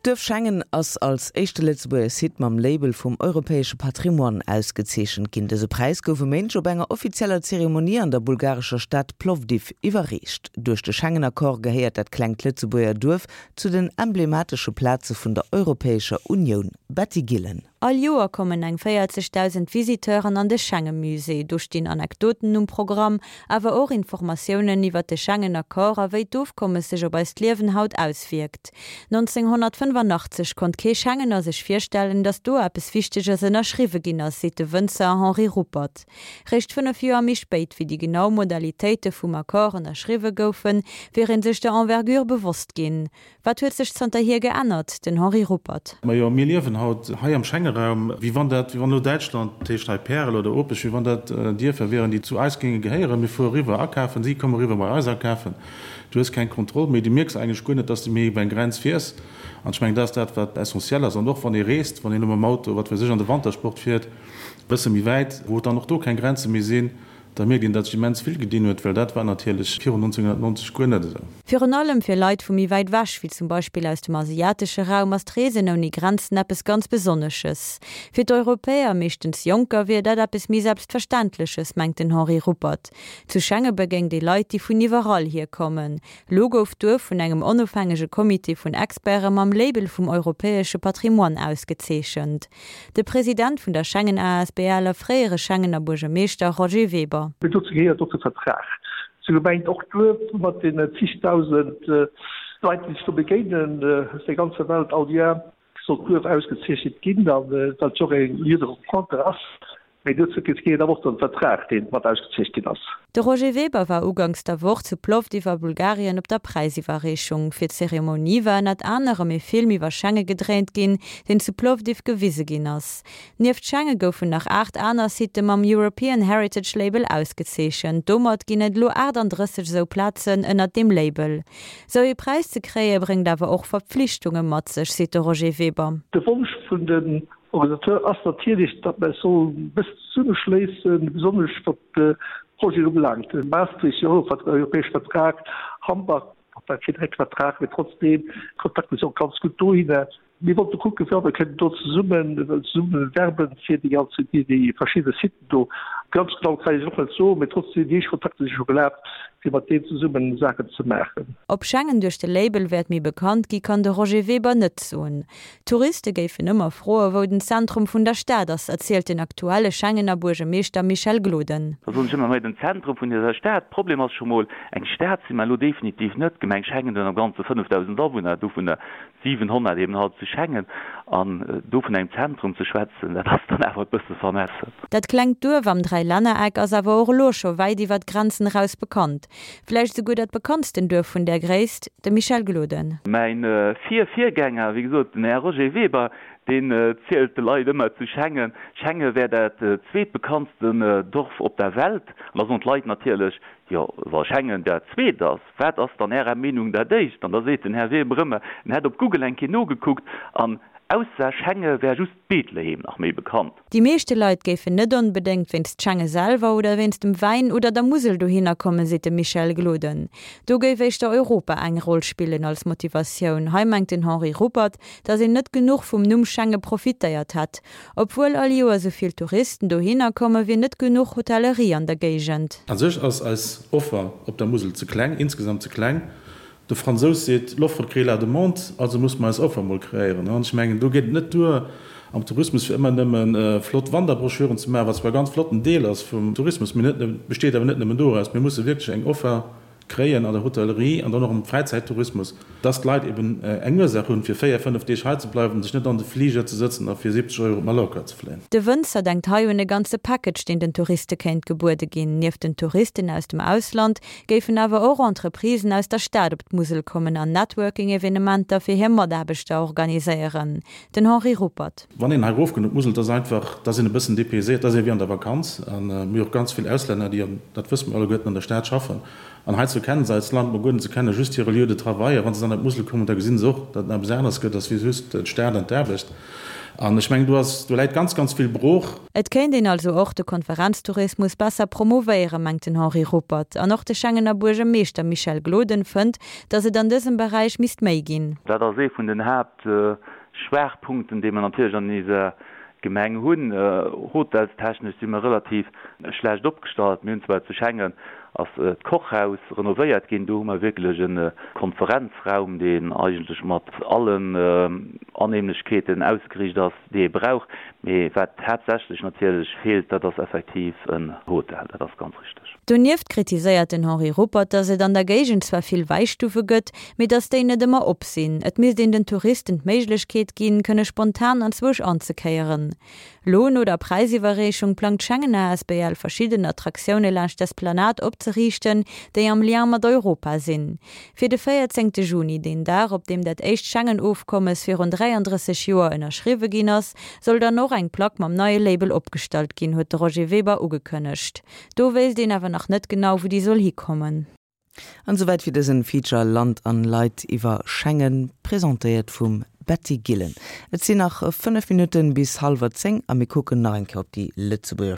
D'Duerf Schengen ass als éischte Lëtzebuerger Site mam Label vum europäesche Patrimoine ausgezeechent ginn. Dëse Präis gouf e Méindeg op enger offizieller Zeremonie an der bulgarescher Stad Plovdiv iwwerreecht. Duerch de Schengen-Accord gehéiert dat klengt Lëtzebuerger Duerf zu den emblematesche Plaze vun der Europäescher Unioun. Betty Gillen. All Joer kommen eng 40.000 Visiteuren an de Schengemusée. Do stinn Anekdoten um Programm, awer och Informatiounen iwwer de Schengen-Accord a wéi d'Ofkommes sech op eist Liewen haut auswierkt. 1985 konnt kee Schengener sech virstellen, datt do eppes Wichteges ënnerschriwwe ginn ass, seet de Wënzer Henri Ruppert. Réischt 5 Joer méi spéit, wéi déi genau Modalitéite vum Accord ënnerschriwwe goufen, wier ee sech der Envergure bewosst ginn. Wat huet sech zanterhier geännert? Den Henri Ruppert. Majo, mir liewen haut hei am Schengeraum, wéi wann dat, wéi wann elo Däitschland, dat heescht hei Pärel oder Opech, wéi wann dat Dierfer wieren, déi zu eis géinge gehéieren. Mir fuere riwwer akafen, si komme riwwer bei eis akafen. Du hues keng Kontroll méi, du mierks eigentlech guer net, dass du méi iwwer eng Grenz fiers. An ech mengen, dat ass dat, wat essentiell ass. An och wann ee reest, wann een elo mam Auto, wat weess ech, an de Wantersport fiert, e bësse méi wäit, wou et dann och do keng Grenze méi sinn, Da mierkt een, datt sech immens vill gedinn huet, well dat war natierlech virun 1990 guer net esou. Virun allem fir Leit vu méi wäit ewech, wéi zum Beispill aus dem asiatesche Raum, ass d'Reesen ouni Grenzen eppes ganz Besonnesches. Fir d'Europäer, meeschtens Jonker, wier dat eppes méi Selbstverständleches, mengt den Henri Ruppert. Zu Schengen begéint ee Leit, déi vun iwwerall hier kommen. Lo gouf d'Duerf vun engem onofhängege Comité vun Experte mam Label vum europäesche Patrimoine ausgezeechent. De President vun der Schengen asbl a fréiere Schengener Buergermeeschter Roger Weber. Mee dozou gehéiert och de Vertrag. Sou gemengt och d'Duerf mat den zigdausend Leit, déi sech do begéinen aus der ganzer Welt all Joer, soll d'Duerf ausgezeechent ginn, a well et jo och e Lieu de rencontre ass. Mee dozou gehéiert awer och den Vertrag, dee mat ausgezeecht ginn ass. De Roger Weber war uganks der Woch zu Plovdiv a Bulgarien op der Präisiwwerreechung. Fir d'Zeremonie war ënnert anerem ee Film iwwer Schenge gedréint ginn, deen zu Plovdiv gewise ginn ass. Nieft Schenge goufen nach 8 aner Sitte mam European Heritage Label ausgezeechent. Domat ginn et elo 38 esou Plazen ënnert deem Label. Sou ee Präis ze kréie bréngt awer och Verpflichtunge mat sech, seet de Roger Weber. De Wonsch vun den Organisateur ass natierlech, datt mer eis sollen e bëssen zesummeschléissen, besonnesch wat d'Projeten ubelaangt. Maastricht, Europäesche Vertrag, Hambach, war keen direkte Vertrag, mee trotzdeem, d'Kontakter si och ganz gutt dohinner. Mir wollte kucken, wéi mer kënnen do zesummen, zesumme werben fir déi ganz, déi, déi verschidde Siten do. Ganz genau kann ech et och net soen, mee trotzdeem, déi éischt Kontakter si scho gelaf, fir mat deenen zesummen Saachen ze maachen. Ob Schengen duerch de Label wäert méi bekannt gi, kann de Roger Weber net soen. Touriste géifen ëmmer froe wou den Zentrum vun der Stad ass, erzielt den aktuelle Schengener Buergermeeschter Michel Gloden. Da soen ech ëmmer, Hei den Zentrum vun dëser Stad. Problem ass scho mol, eng Stad si mer elo definitiv net. D'Gemeng Schengen huet am Ganze 5.000 Awunner, dovunner 700 eben halt zu Schengen. An do vun engem Zentrum ze schwätzen, dat ass dann awer e bësse vermessen. Dat klengt Duerf am Dräilännereck ass awer och elo scho wäit iwwer d'Grenzen eraus bekannt. Vläicht esouguer dat bekanntsten Duerf vun där Gréisst, de Michel Gloden. Mäin Vir-Virgänger, wéi gesot, den Här Roger Weber, deen zielt de Leit ëmmer zu Schengen, Schengen wär dat zweetbekanntsten Dorf op der Welt. An da soen d'Leit natierlech, Jo, wa Schengen dat zweet ass, wat ass dann Ärer Meenung dat éischt? An da seet den Här Weber ëmmer, en hätt op Google eng Kéier nogekuckt an ausser Schenge wär just Bethlehem nach méi bekannt. Déi meeschte Leit géifen net onbedéngt wéinst Schenge selwer oder wéinst dem Wäin oder der Musel dohinner kommen, seet de Michel Gloden. Do géif éischter Europa eng Roll spillen als Motivatioun. Hei mengt den Henri Ruppert, datt een net genuch vum Numm Schenge profitéiert hätt. Obwuel all Joer sou vill Touristen dohinner kommen, wier net genuch Hotellerie an der Géigend. A sech ass eis Offer op der Musel ze kleng, insgesamt ze kleng. De Fransous seet, L'offre crée la demande, also musse mer eis Offer emol kreéieren. An ech mengen, do geet et net duer am Tourismus fir ëmmer nëmme flott Wanderbroschüren ze maachen, wat zwar e ganz flotten Deel ass vum Tourismus, mee net, besteet awer net nëmmen doraus. Mir musse wierklech eng Offer kréien an der Hotellerie an dann och am Fräizäittourismus, dass d'Leit eben eng Ursaach hunn, fir 4, 5 Deeg hei ze bleiwen, sech net an de Fliger ze sëtzen a fir 70 Euro op Mallorca ze fléien. De Wënzer denkt hei un e ganze Package, deen den Touriste kéint gebuede ginn. Nieft den Touristen aus dem Ausland géifen awer och Entreprisen aus der Stad op d'Musel kommen an Networking-Evenementer fir hir Mataarbechter organiséieren. Den Henri Ruppert. Wann een hei erofkënnt op d'Musel, et ass einfach, et ass een e bëssen dépayséiert, et ass ee wéi an der Vakanz. A mir hu och ganz vill Auslänner, déi, an dat wësse mir alleguerten, an der Stad schaffen. An heizou kennen se eist Land mol guer net, se kenne just hire Lieu de travail. A wa se dann op d'Musel kommen, da gesinn se och, datt et nach eppes aneres gëtt, ass wéi just d'Stad an d'Aarbecht. An ech mengen, do ass, do läit ganz, ganz vill brooch. Et kéint een also och de Konferenztourismus besser promouvéieren, mengt den Henri Ruppert. An och de Schengener Buergermeeschter Michel Gloden fënnt, datt et an dësem Beräich misst méi ginn. Dat ass ee vun den Haaptschwaachpunkten, déi mer natierlech an eiser Gemeng hunn. Hotelstechnesch si mer relativ schlecht opgestallt. Mir hunn zwar zu Schengen ass d'Kochhaus renovéiert ginn, do hu mer wierklech e Konferenzraum, deen eigentlech mat allen Annehmlechkeeten ausgeriicht ass, déi ee brauch. Mee wat haaptsächlech natierlech feelt, dat ass effektiv en Hotel, dat ass ganz richteg. Donieft kritiséiert den Henri Ruppert, datt et an der Géigend zwar vill Wäistufe gëtt, mee datt déi net ëmmer op sinn. Et misst een den Touristen d'Méiglechkeet ginn, kënne spontan anzwousch anzekéieren. Lo no der Präisiwwerreechung plangt d'Schengen asbl verschidden Attraktioune laanscht d'Esplanade opzeriichten, déi am Lien mat Europa sinn. Fir de 14 Juni, deen Dag op deem dat éischt Schengen-Ofkommes virun 33 Joer ënnerschriwwe ginn ass, soll dann och eng Plack mam neie Label opgestallt ginn, huet de Roger Weber ugekënnegt. Do wéisst een awer nach net genau, wou déi soll hikommen. An esouwäit fir dësen Feature Land an Leit iwwer Schengen, presentéiert vum Betty Gillen. Et sinn nach 5 Minutten bis hallwer 10 a mir kucken nach eng Kéier op déi Lëtzebuerger.